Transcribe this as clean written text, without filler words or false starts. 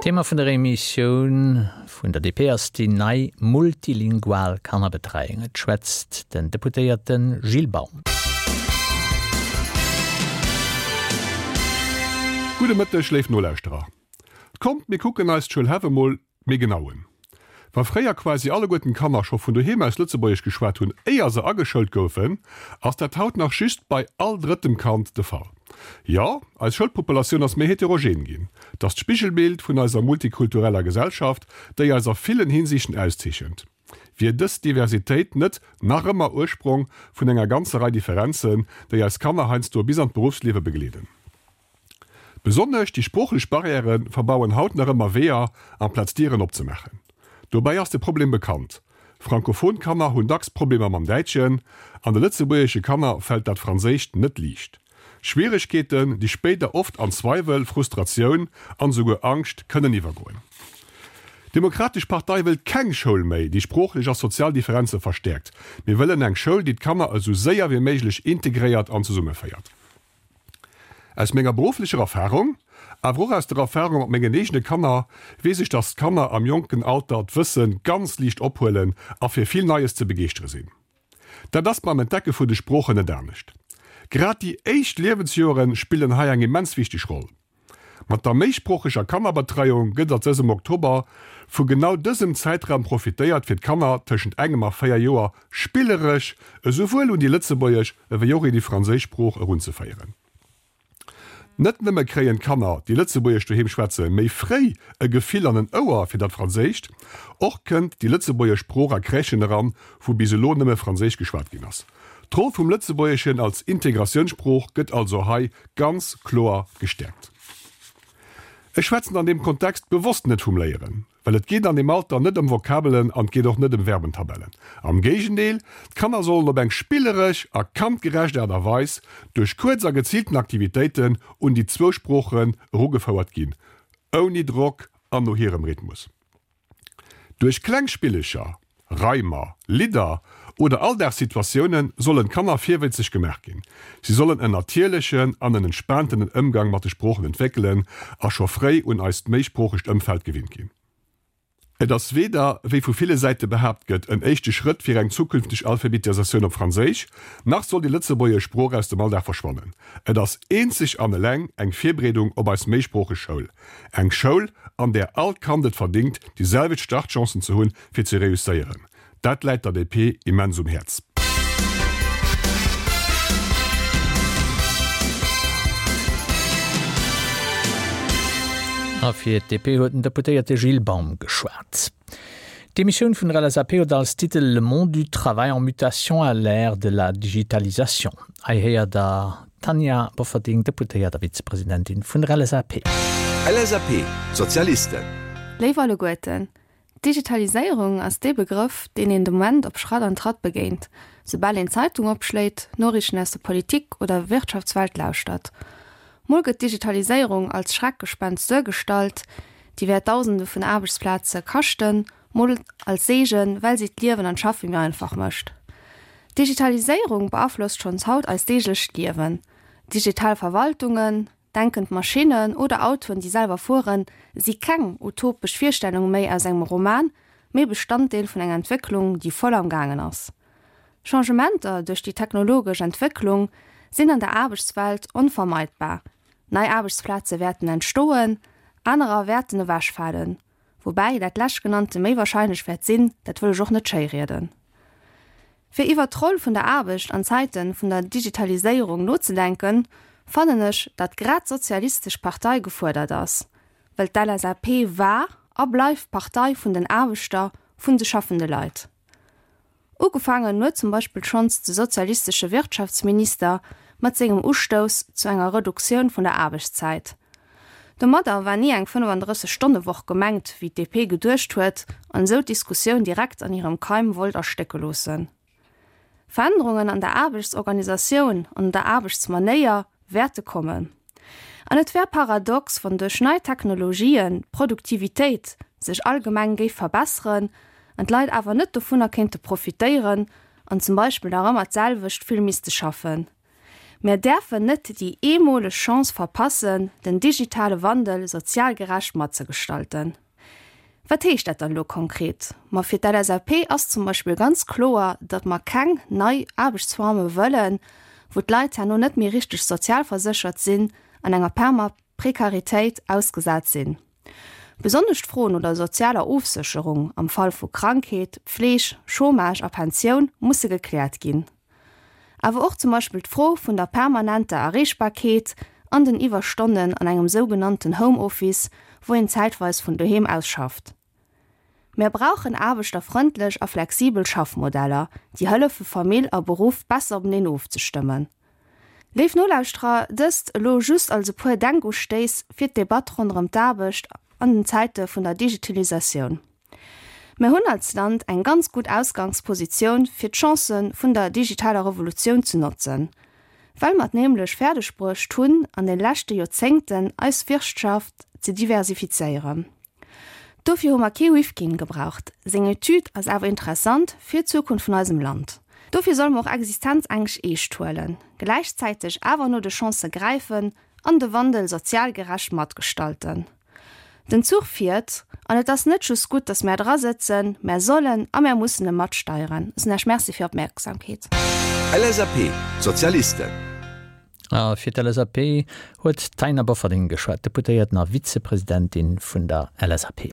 Thema vun der Emissioun vun der DP ass déi nei multilingual Kannerbetreiung. Et schwätzt den Deputéierte Gilles Baum. Gudde Mëtteg, léif Nolauschterer. Kommt, mir kucken eis d'Schoul Häff emol méi genau un. Wa fréier quasi alleguerten d'Kanner scho vun doheem aus Lëtzebuergesch geschwat hunn, éier se ageschoult goufen, ass dat haut nach just bei all drëttem Kand de Fall. Jo, eis Schoulpopulatioun ass méi heterogen ginn. Et ass d'Spigelbild vun eiser multikultureller Gesellschaft, déi eis a villen Hinsichten auszeechent. Wier dës Diversitéit net nach ëmmer Ursprong vun enger ganzer Rei Differenzen, déi eis Kanner heiansdo bis an d'Beruffsliewe begleeden? Besonnesch déi sproochlech Barrièrë verbauen haut nach ëmmer Weeër, amplaz Dieren opzemaachen. Dobäi ass de Problem bekannt, Frankophon Kanner hunn dacks Problemer mam Däitschen, an de lëtzebuergesche Kanner fält dat Franséischt net liicht. Schwieregkeeten, déi spéider oft an Zweiwel, Frustratioun an esouguer Angscht kënnen iwwergoen. D'Demokratesch Partei wëllt keng Schoul méi, déi sproochlech a sozial Differenze verstäerkt. Mir wëllen eng Schoul, déi d'Kanner esou séier wéi méiglech integréiert an zesummeféiert. Aus menger berufflecher Erfahrung, awer och aus der Erfahrung mat mengen eegene Kanner, weess ech, dass d'Kanner am jonken Alter d'Wësse ganz liicht ophuelen a fir vill Neies ze begeeschtere sinn. Dat ass beim Entdecke vun de Sproochen net anescht. Grad déi éischt Liewensjoere spillen hei eng immens wichteg Roll. Mat der méisproocheger Kannerbetreiung gëtt a dësem Oktober vu genau dësem Zäitraum profitéiert, fir d'Kanner tëschent engem a 4 Joer spilleresch esouwuel un déi lëtzebuergesch ewéi och un déi franséisch Sprooch erunzeféieren. Net nëmme kréien d'Kanner, déi Lëtzebuergesch doheem schwätzen, méi fréi e Gefill an en Ouer fir dat Franséischt, och kënnt déi lëtzebuergesch Sprooch a Crèchen eran, wou bis elo nëmme Franséisch geschwat ginn ass. D'Roll vum Lëtzebuergeschen als Integratiounssprooch gëtt also hei ganz kloer gestäerkt. Ech schwätzen an deem Kontext bewosst net vum Léieren, well et geet an deem Alter net ëm Vokabelen an et geet och net ëm Verbentabellen. Am Géigendeel, d'Kanner sollen op eng spilleresch a kandgerecht Aart a Weis duerch kuerz a geziilten Aktivitéiten un déi zwou Sproochen erugefouert ginn, ouni Drock an no hirem Rhythmus. Duerch kleng Spillecher, Reimer, Lidder oder Alldagssituatioune sollen d'Kanner virwëtzeg gemaach ginn. Si sollen en natierlechen an en entspaantenen Ëmgang mat de Sproochen entwéckelen a scho fréi un eist méisproochegt Ëmfeld gewinnt ginn. Et ass weder, wéi vu ville Säite behaapt gëtt, en éischte Schrëtt fir eng zukünfteg Alphabetisatioun op Franséisch, nach soll déi lëtzebuergesch Sprooch aus dem Alldag verschwannen. Et ass eenzeg an eleng eng Virbereedung op eis méisproocheg Schoul. Eng Schoul, an där all Kand et verdingt, déi selwecht Startchancen ze hunn, fir ze reusséieren. Dat läit der DP immens um Häerz. A fir d'DP huet den Deputéierte Gilles Baum geschwat. D'Emissioun vun der LSAP huet als Titel Le monde du travail en mutation à l'ère de la digitalisation. Hei héiert Der D'Tanja Bofferding, Deputéiert a Vizepresidentin vun der LSAP. LSAP, Sozialisten. Léif alleguerten, D'Digitaliséierung ass dee Begrëff, deen een de Moment op Schratt an Tratt begéint, soubal een d'Zeitung opschléit, Noriichten aus der Politik oder Wirtschaftswelt lauschtert. Mol gëtt d'Digitaliséierung als Schreckgespenst duergestallt, déi wäert Dausende vun Aarbechtsplaze kaschten, mol als Seegen, well si d'Liewen an d'Schaffe méi einfach mécht. D'Digitaliséierung beaflosst schonns haut eist deeglecht Liewen. Digital Verwaltungen, denkend Maschinnen oder Autoen, déi selwer fueren, si keng utopesch Virstellung méi aus engem Roman, mee Bestanddeel vun enger Entwécklung, déi voll am gaangen ass. Changementer duerch déi technologesch Entwécklung sinn an der Aarbechtswelt onvermeidbar. Nei Aarbechtsplaze wäerten entstoen, anerer wäerten ewechfalen. Woubäi dat leschtgenannte méi wahrscheinlech wäert sinn, dat wëll ech och net schéirieden. Fir iwwert d'Roll vun der Aarbecht an Zäite vun der Digitaliséierung nozedenken, fannen ech, datt grad d'Sozialistesch Partei gefuerdert ass, well d'LSAP war a bleift d'Partei vun den Aarbechter, vun de schaffende Leit. Ugefaangen huet zum Beispill schonns de sozialistesche Wirtschaftsminister mat sengem Ustouss zu enger Reduktioun vun der Aarbechtszäit. Domadder war ni eng 35 Stonne-Woch gemengt, wéi d'DP geduecht huet an esou d'Diskussioun direkt an hirem Keim wollt erstécke loossen. Verännerungen an der Aarbechtsorganisatioun an an der Aarbechtsmanéier wäerte kommen. An et wär paradox, wann duerch nei Technologien d'Produktivitéit sech allgemeng géif verbesseren an d'Leit awer net dovunner kéinte profitéieren an zum Beispill nach ëmmer d'selwecht vill misste schaffen. Mär däerfen net déi eemoleg Chance verpassen, den digitale Wandel sozial gerecht matzegestalten. Wat heescht dat dann elo konkret? Ma fir d'LSAP ass zum Beispill ganz kloer, datt mer keng nei Aarbechtsforme wëllen, wou d'Leit herno net méi richteg sozialverséchert sinn an enger perma. Prekaritéit ausgesat sinn. Besonnesch d'Fro no der sozialer Ofsécherung am Fall vu Krankheet, Pfleeg, Chômage a Pensioun musse gekläert ginn. Awer och zum Beispill d'Fro vun der permanenter Erreechbarkeet an den Iwwerstonnen an engem sougenannten Homeoffice, wou een zäitweis vun doheem aus schafft. Mär brauchen aarbechterfrëndlech a flexibel Schaffmodeller, déi hëllefe Famill a Beruff besser openeen ofzestëmmen. Léif Nolauschterer, dëst elo just als e puer Denkustéiss fir d'Debatt ronderëm d'Aarbecht an den Zäite vun der Digitalisatioun. Mär hunn als Land eng ganz gutt Ausgangspositioun fir d'Chancë vun der digitaler Revolutioun ze notzen, well mer et nämlech fäerdeg bruecht hunn an de leschte Joerzéngten eis Wirtschaft ze diversifizéieren. Dofir hu mer kee Rifkin gebraucht. Seng Etüd ass awer interessant fir d'Zukunft vun eisem Land. Dofir solle mer och Existenzängscht eescht huelen, gläichzäiteg awer no de Chancë gräifen an de Wandel sozial gerecht matgestalten. Den Zuch fiert, an et ass net just gutt, datt mär dra sëtzen, mär sollen a mär mussen e matsteieren. Ech soen Iech Merci fir Opmierksamkeet. LSAP, Sozialisten. A fir d'LSAP huet d'Taina Bofferding geschwat, Deputéierten a Vizepresidentin vun der LSAP.